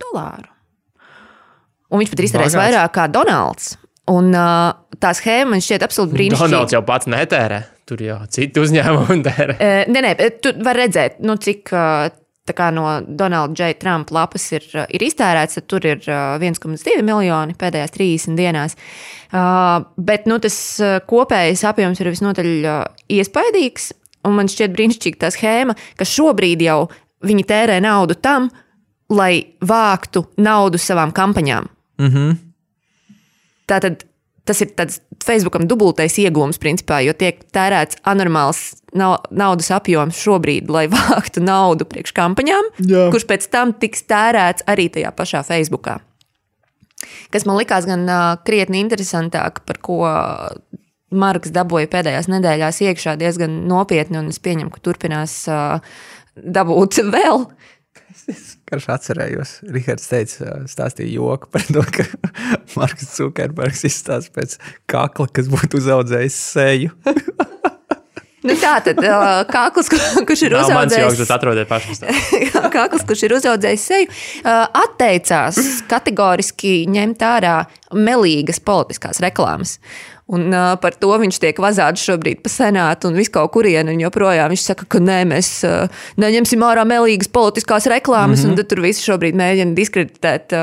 Un viņš pat ir iztērējis vairāk kā Donalds. Un tā schēma man šķiet absolūti brīnišķīga. Donalds jau pats netērē, tur jau citi uzņēmumi tērē. Nē, tu var redzēt, cik tā kā no Donalda J. Trumpa lapas ir iztērēts, tad tur ir 1,2 miljoni pēdējās 30 dienās. Bet tas kopējais apjoms ir visnotaļ iespaidīgs, un man šķiet brīnišķīga tā schēma, ka šobrīd jau viņi tērē naudu tam, lai vāktu naudu savām kampaņām. Mhm. Tātad tas ir tāds Facebookam dubultais iegūms, principā, jo tiek tērēts anormāls naudas apjoms šobrīd, lai vāktu naudu priekš kampaņām, kurš pēc tam tiks tērēts arī tajā pašā Facebookā. Kas man likās gan krietni interesantāk, par ko Marks dabūja pēdējās nedēļās iekšā diezgan nopietni, un es pieņemu, ka turpinās dabūt vēl. Es karš atcerējos, Rihards teica, stāstīja joku par to, ka Marks Zukerbergs izstāsta pēc kakla, kas būtu uzaudzējis seju. Nu tā tad kakls, kurš ir uzaudzējis... Mans joks, bet atrodiet pašas. Kakls, kurš ir uzaudzējis seju, atteicās kategoriski ņemt ārā melīgas politiskās reklāmas. Un par to viņš tiek vazāts šobrīd pa senātu un visu kaut kurienu, un joprojām viņš saka, ka nē, mēs neņemsim ārā melīgas politiskās reklāmas, un tad tur visi šobrīd mēģina diskreditēt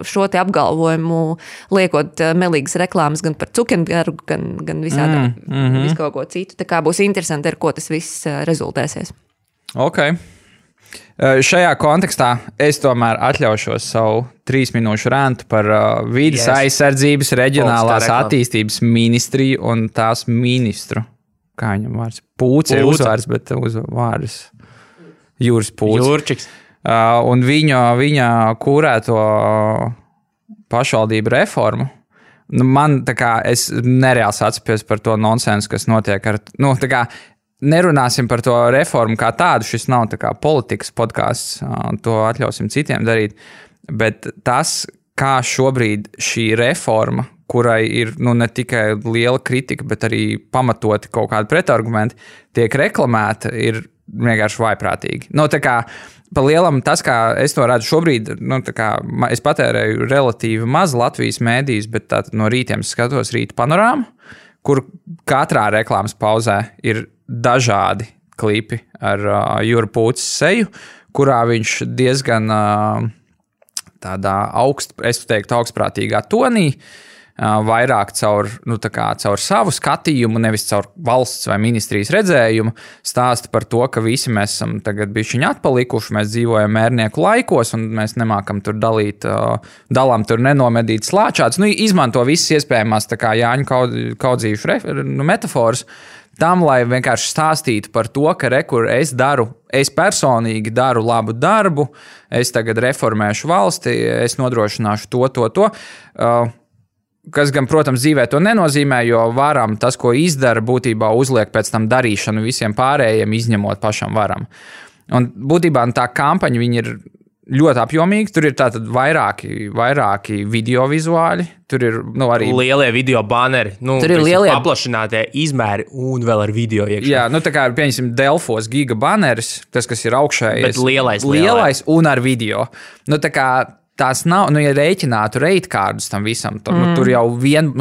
šo te apgalvojumu, liekot melīgas reklāmas gan par Zuckerbergu, gan visādā, visu kaut ko citu. Tā kā būs interesanti, ar ko tas viss rezultēsies. Ok. Šajā kontekstā es tomēr atļaušos savu 3 minūšu rantu par vides aizsardzības reģionālās attīstības ministriju un tās ministru. Kā viņam vārds? Pūce ir uzvārds, bet uzvārds Jūras Pūce. Jūrčiks. Un viņa kūrēto pašvaldību reformu. Nu, man tā kā es nereāli atceros par to nonsensu, kas notiek ar... Nu, tā kā nerunāsim par to reformu kā tādu, šis nav tā kā politikas podcasts, to atļausim citiem darīt, bet tas, kā šobrīd šī reforma, kurai ir ne tikai liela kritika, bet arī pamatoti kaut kādi pretargumenti, tiek reklamēta, ir vienkārši vaiprātīgi. Tā kā pa lielam tas, kā es to redzu šobrīd, tā kā es patērēju relatīvi maz Latvijas mēdījus, bet tātad no rītiem skatos Rīta panorāmu, kur katrā reklāmas pauzē ir dažādi klipi ar Jūra Pūces seju, kurā viņš diezgan tādā augstprātīgā tonī, vairāk caur savu skatījumu, nevis caur valsts vai ministrijas redzējumu, stāsta par to, ka visi mēs esam tagad bišķiņi atpalikuši, mēs dzīvojam mērnieku laikos un mēs nemākam tur dalām tur nenomedīt slāčāts. Izmanto visas iespējamās tā kā Jāņu kaudzījuši metaforas, tam, lai vienkārši stāstītu par to, ka es personīgi daru labu darbu, es tagad reformēšu valsti, es nodrošināšu to. Kas gan, protams, dzīvē to nenozīmē, jo varam tas, ko izdara, būtībā uzliek pēc tam darīšanu visiem pārējiem, izņemot pašam varam. Un būtībā tā kampaņa viņi ir ļoti apjomīgi. Tur ir tātad vairāki video vizuāļi. Tur ir arī lielie video banneri. Tur ir lielie paplašinātie izmēri un vēl ar video iekšā. Jā, tā kā ir, pieņemsim, Delfos giga banneris, tas, kas ir augšējais. Bet lielais un ar video. Tā kā tās nav, ja rēķinātu reitkārdus tam visam, tur jau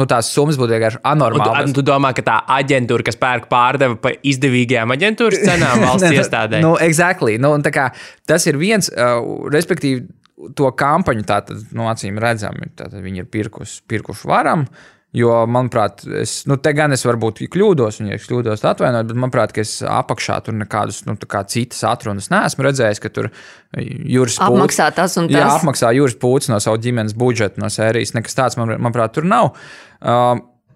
tās summas būtu vienkārši anormāli. Tu domā, ka tā aģentūra, kas pērk pārdeva pa izdevīgajām aģentūras cenām valsts iestādē? Exactly. Tā kā tas ir viens, respektīvi, to kampaņu tātad, acīm redzami, tātad viņi ir pirkuši varam, jo, manuprāt, te gan es varbūt kļūdos, un ja es kļūdos atvainot, bet, manuprāt, ka es apakšā tur nekādus, citas atrunas neesmu redzējis, ka tur Jūras Pūce... Apmaksā tas un tas. Jā, apmaksā Jūras Pūce no savu ģimenes budžetu no sērijas, nekas tāds, manuprāt, tur nav.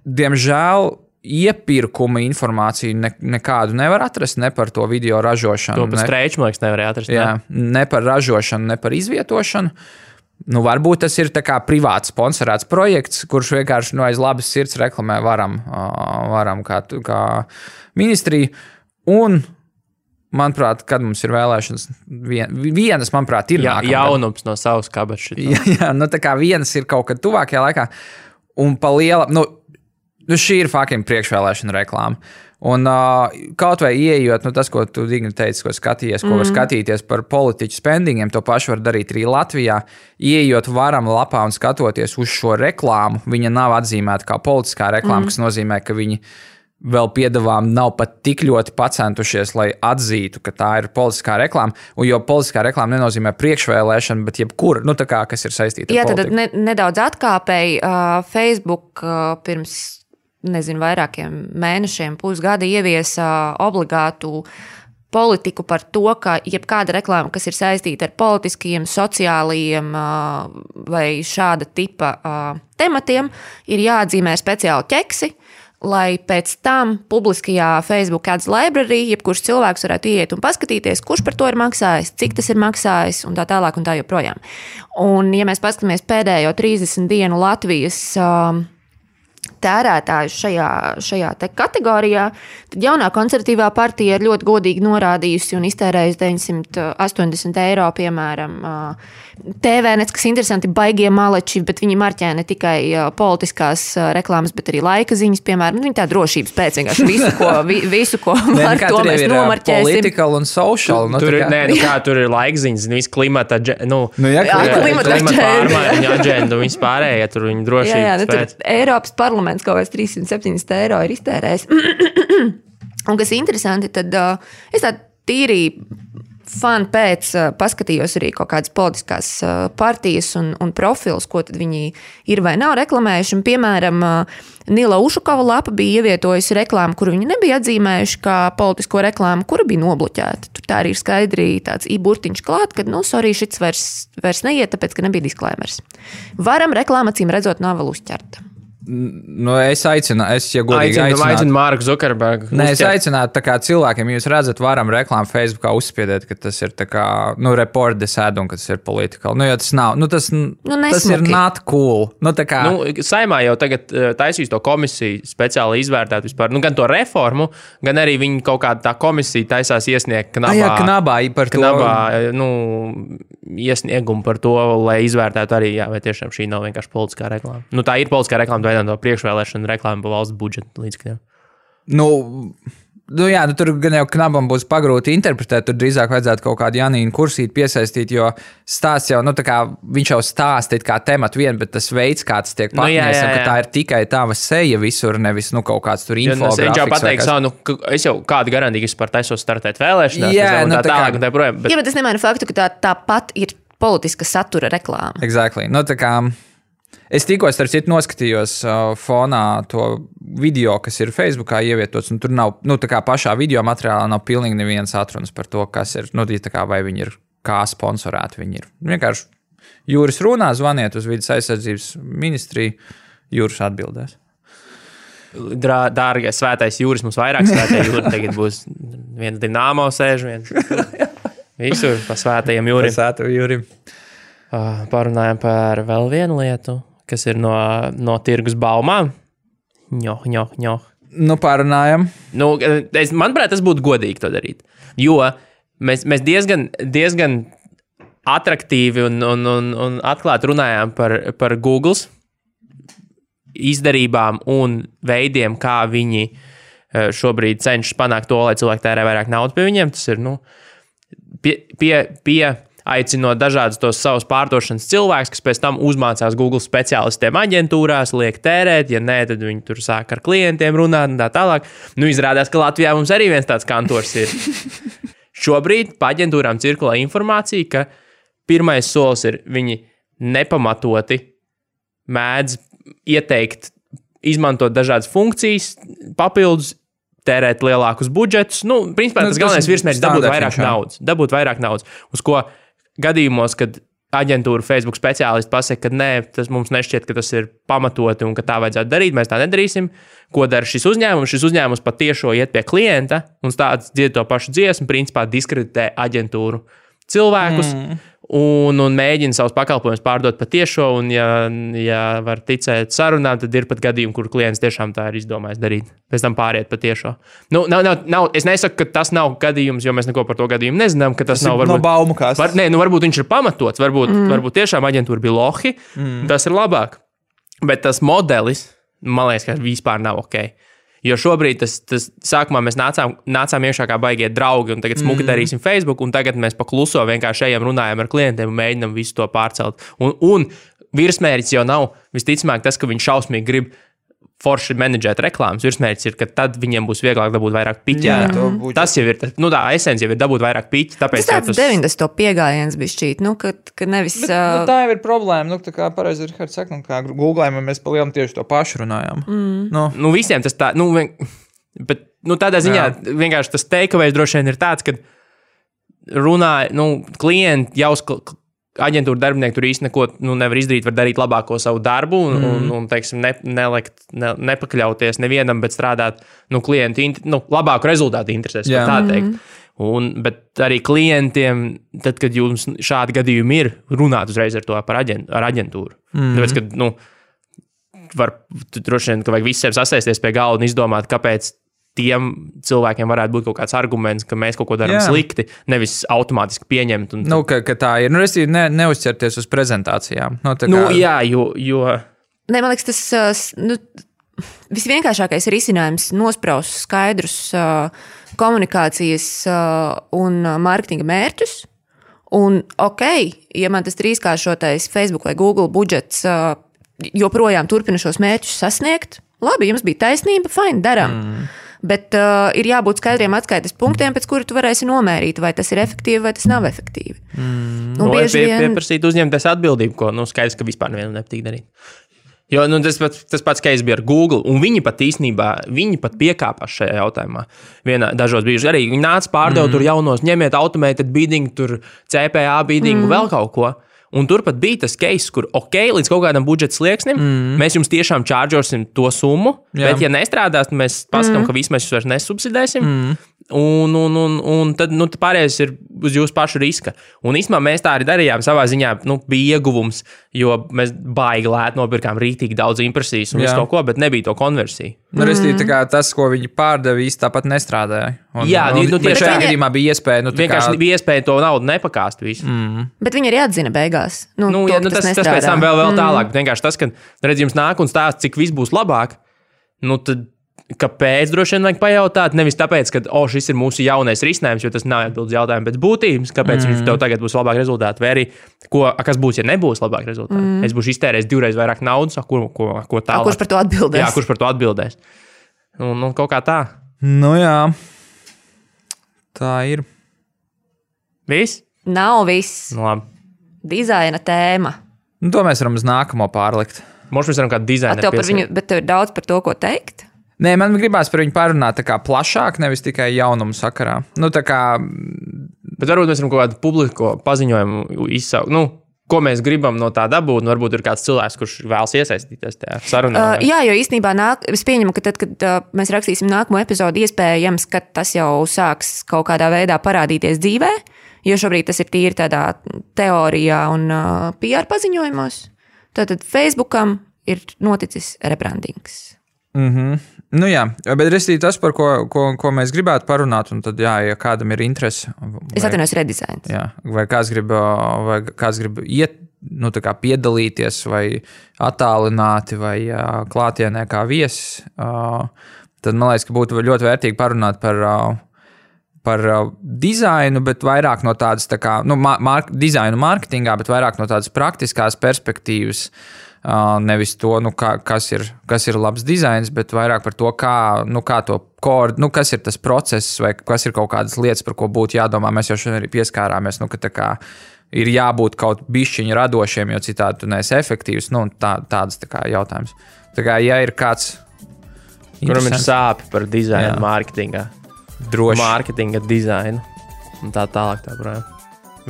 Diemžēl iepirkuma informāciju nekādu nevar atrast, ne par to video ražošanu. To par Streiču, man liekas, nevarēja atrast. Jā, ne par ražošanu, ne par izvietošanu. Varbūt tas ir tā kā privāts sponsorēts projekts, kurš vienkārši aiz labas sirds reklamē varam kā ministriju. Un, manuprāt, kad mums ir vēlēšanas, vienas, manuprāt, ir nākamgad. Jaunums no savas kabatas. Jā, tā kā vienas ir kaut kad tuvākajā laikā. Un pa liela, šī ir fucking priekšvēlēšana reklāma. Un kaut vai ieejot, tas, ko tu Digni teici, ko skatījies, ko var skatīties par politiķu spendingiem, to pašu var darīt arī Latvijā. Ieejot varam lapā un skatoties uz šo reklāmu, viņa nav atzīmēta kā politiskā reklāma, kas nozīmē, ka viņi vēl piedāvām nav pat tik ļoti pacentušies, lai atzītu, ka tā ir politiskā reklāma. Jo politiskā reklāma nenozīmē priekšvēlēšanu, bet jebkura, kas ir saistīta ar politiku. Jā, tad nedaudz atkāpēji Facebook pirms vairākiem mēnešiem, pusgada ieviesa obligātu politiku par to, ka jebkāda reklāma, kas ir saistīta ar politiskiem, sociālajiem vai šāda tipa tematiem, ir jāatzīmē speciāli ķeksi, lai pēc tam publiskajā Facebook ads library jebkurš cilvēks varētu iet un paskatīties, kurš par to ir maksājis, cik tas ir maksājis un tā tālāk un tā joprojām. Un, ja mēs paskatāmies pēdējo 30 dienu Latvijas tērētājus šajā te kategorijā, tad jaunā konservatīvā partija ir ļoti godīgi norādījusi un iztērējusi 980 eiro, piemēram, TVNets, kas interesanti, baigie maleči, bet viņi marķē ne tikai politiskās reklāmas, bet arī laika ziņas, piemēram. Viņi tā drošības pēc vienkārši visu, ko var, to mēs nomarķēsim. Political un social. Tur ir laika ziņas, viss klimata, klimata pārmaiņu aģendu, viss pārējie, tur viņi drošības pēc. Eiropas parlaments kaut kāds 370 eiro ir iztērējis. Un kas interesanti, tad es tā tīri fan pēc paskatījos arī kaut kādas politiskās partijas un profils, ko tad viņi ir vai nav reklamējuši. Un, piemēram, Nila Ušukova lapa bija ievietojusi reklāmu, kuru viņi nebija atzīmējuši kā politisko reklāmu, kura bija nobloķēta. Tur tā arī ir skaidri tāds i-burtiņš klāt, ka, sorry, šits vairs neiet, tāpēc, ka nebija disklēmers. Varam reklāma, acīm redzot, nav vēl uzķerta. Es aicinu Marku Zukerbergu. Es aicinātu tā kā cilvēkiem, jūs redzat, varam reklāmu Facebookā uzspiedēt, ka tas ir tā kā, report this ad un ka tas ir political. Jo tas nav, tas ir not cool. Tā kā. Saimā jau tagad taisīs to komisiju speciāli izvērtēt vispār, gan to reformu, gan arī viņi kaut kāda tā komisija taisās iesniegt knabā par to. Iesniegumu par to, lai izvērtētu arī, vai tiešām šī nav vienkārši politiskā reklāma. Tā ir politiskā reklāma, no priekšvēlēšana reklāma pa valsts budžeta līdzekļiem. Tur gan jau knabam būs pagrūti interpretēt, tur drīzāk vajadzētu kaut kādu Janīnu Kursīti piesaistīt, jo stāsts jau, viņš jau stāsta kā tematu vien, bet tas veids, kā tas tiek patnies, ka tā ir tikai tava seja visur, nevis kaut kāds tur infografiks. Viņš jau pateiks, es jau kādu garantiju, ka es par taisos startēt vēlēšanās, tā tālāk un tā projām. Jā, bet es nemēnu faktu, ka tāpat ir politiska satura reklāma. Exactly. Es tikko, starp citu, noskatījos fonā to video, kas ir Facebookā ievietots, un tur nav, tā kā pašā video materiālā nav pilnīgi nevienas atrunas par to, kas ir, tā kā vai viņi ir, kā sponsorēti viņi ir. Vienkārši Jūris runā, zvaniet uz vidas aizsardzības ministriju, Jūris atbildēs. Dārgais svētais Jūris, mums vairāk svētē Jūri, tagad būs viens Dinamo sēž, viens visur pa svētajiem Jūrim. Parunājam par vēl vienu lietu, kas ir no tirgus baumām. Parunājam. Manuprāt, tas būtu godīgi to darīt. Jo mēs diezgan atraktīvi un atklāti runājām par Googles izdarībām un veidiem, kā viņi šobrīd cenšas panākt to, lai cilvēki tērē vairāk naudas pie viņiem. Tas ir aicinot dažādus tos savus pārdošanas cilvēkus, kas pēc tam uzmācās Google speciālistiem aģentūrās, liek tērēt, ja nē, tad viņi tur sāk ar klientiem runāt un tā tālāk. Izrādās, ka Latvijā mums arī viens tāds kantors ir. Šobrīd pa aģentūrām cirkulē informācija, ka pirmais solis ir viņi nepamatoti mēdz ieteikt, izmantot dažādas funkcijas, papildus, tērēt lielākus budžetus. Principā tas galvenais virsmērķis dabūt vairāk naudas. Uz ko gadījumos, kad aģentūra Facebook speciālisti pasaka, ka nē, tas mums nešķiet, ka tas ir pamatoti un ka tā vajadzētu darīt, mēs tā nedarīsim. Ko dara šis uzņēmums? Šis uzņēmums patiešo iet pie klienta un stāsts dzied to pašu dziesmu, principā diskreditē aģentūru cilvēkus un mēģina savus pakalpojumus pārdot patiešo, un ja var ticēt sarunām, tad ir pat gadījumi, kur klients tiešām tā ir izdomājis darīt. Pēc tam pāriet patiešo. Es nesaku, ka tas nav gadījums, jo mēs neko par to gadījumu nezinām, ka tas nav varbūt... No baumu kāstas. Varbūt viņš ir pamatots, varbūt tiešām aģentūra bija lohi, tas ir labāk. Bet tas modelis, man liekas, ka vispār nav ok. Jo šobrīd tas sākumā mēs nācām iekšā kā baigie draugi, un tagad smuki darīsim Facebook, un tagad mēs pa kluso vienkārši ejam, runājam ar klientiem un mēģinam visu to pārcelt. Un virsmērķis jau nav visticamāk tas, ka viņš šausmīgi grib forši menedžēt reklāmas. Virsmērķis ir, ka tad viņiem būs vieglāk dabūt vairāk piķi. Tas jau ir, tā esence jau ir dabūt vairāk piķi. Tas tāds 90. piegājiens bija šķīt, ka nevis... Bet, tā jau ir problēma, tā kā pareizi Rihards saka, kā Googlējumā mēs pa lielam tieši to pašu runājām. Visiem tas tā, Bet tādā ziņā vienkārši tas takeaways droši vien ir tāds, ka runāja, klienti jau aģentūra darbinieki tur īsti neko nevar izdarīt, var darīt labāko savu darbu un teiksim, nepakļauties nevienam, bet strādāt klientu labāku rezultātu interesēs, tā teikt. Bet arī klientiem, tad, kad jums šādi gadījumi ir, runāt uzreiz ar to ar aģentūru. Tāpēc, ka droši vien, ka vajag visiem sasēsties pie galda un izdomāt, kāpēc tiem cilvēkiem varētu būt kaut kāds arguments, ka mēs kaut ko darām slikti, nevis automātiski pieņemt. Ka tā ir. Es neuzķerties uz prezentācijām. Jo... Ne, man liekas, tas visvienkāršākais risinājums nospraust skaidrus komunikācijas un mārketinga mērķus. Un, ja man tas 3-kāršotais Facebook vai Google budžets joprojām turpina šos mērķus sasniegt, labi, jums bija taisnība, fine, darām. Bet ir jābūt skaidriem atskaites punktiem, pēc kura tu varēsi nomērīt, vai tas ir efektīvi, vai tas nav efektīvi. Pieprasīt uzņemties atbildību, ko skaidrs, ka vispār nevienam nepatīk darīt. Jo tas pats case bija ar Google, un viņi pat piekāpās šajā jautājumā. Dažos brīžos arī viņi nāca pārdeva tur jaunos, ņemiet automated bidding, tur CPA bidding, vēl kaut ko. Un turpat bija tas case, kur līdz kaut kādam budžeta slieksnim mēs jums tiešām čāržosim to summu, bet ja nestrādās, mēs pasakām, ka visu mēs jūs vairs nesubsidēsim. Un tad pārējais ir uz jūsu pašu riska. Un īstenībā mēs tā arī darījām savā ziņā, bija ieguvums, jo mēs baigi lēt nopirkām rītīgi daudz impresijas un visu kaut ko, bet nebija to konversiju. Tas, ko viņi pārdeva, īsti tāpat nestrādāja. Tieši šajā gadījumā bija iespēja. Vienkārši bija iespēja to naudu nepakāst visu. Bet viņi arī atzina beigās. Tas pēc tam vēl tālāk. Vienkārši tas, ka redz jums nāk un stāst, cik viss būs labāk, tad kāpēc droši vien vajag pajautāt? Nevis tāpēc, ka šis ir mūsu jaunais risinājums, jo tas nav atbildes jautājums, bet būtības, kāpēc viņš tev tagad būs labāk rezultāti, vai arī kas būs, ja nebūs labāk rezultāti. Es būšu iztērējis 2 reizes vairāk naudas, ko tālāk. Kurš par to atbildēs? Jā, kurš par to atbildēs. Un kaut kā tā. Jā. Tā ir. Viss? Nav viss. Labi. Dizaina tēma. To mēs varam uz nākamo pārlikt. Mums varam kādu dizainu. Bet tev ir daudz par to, ko teikt? Nē, man gribās par viņu parunāt tā kā plašāk, nevis tikai jaunumu sakarā. Bet varbūt mēs varam kaut kādu publisko paziņojumu izsaukt. Ko mēs gribam no tā dabūt, varbūt ir kāds cilvēks, kurš vēlas iesaistīties tajā sarunā. Jā, jo īstenībā es pieņemu, ka tad, kad mēs rakstīsim nākamo epizodu, iespējams, ka tas jau sāks kaut kādā veidā parādīties dzīvē, jo šobrīd tas ir tīri tādā teorijā un PR paziņojumos. Tātad Facebookam ir noticis rebrandings. Jā, bet restīvi tas, par ko mēs gribētu parunāt, un tad, ja kādam ir interese. Es atvainojos redizains. Jā, vai kāds grib iet, piedalīties, vai attālināti, vai klātienē kā viesis, tad man liekas, ka būtu ļoti vērtīgi parunāt par dizainu, bet vairāk no tādas, dizainu mārketingā, bet vairāk no tādas praktiskās perspektīvas. Nevis to, kas ir labs dizains, bet vairāk par to, kas ir tas process, vai kas ir kaut kādas lietas, par ko būtu jādomā. Mēs jau šodien arī pieskārāmies, ka ir jābūt kaut bišķiņi radošiem, jo citādi tu neesi efektīvs. Tādas jautājums. Ja ir kāds, kuram ir sāpi par dizainu mārketingā, droši mārketinga dizainu un tā tālāk.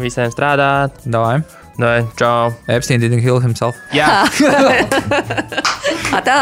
Visiem strādāt. Davai. Čau. Epstein didn't kill himself. Jā. Tā.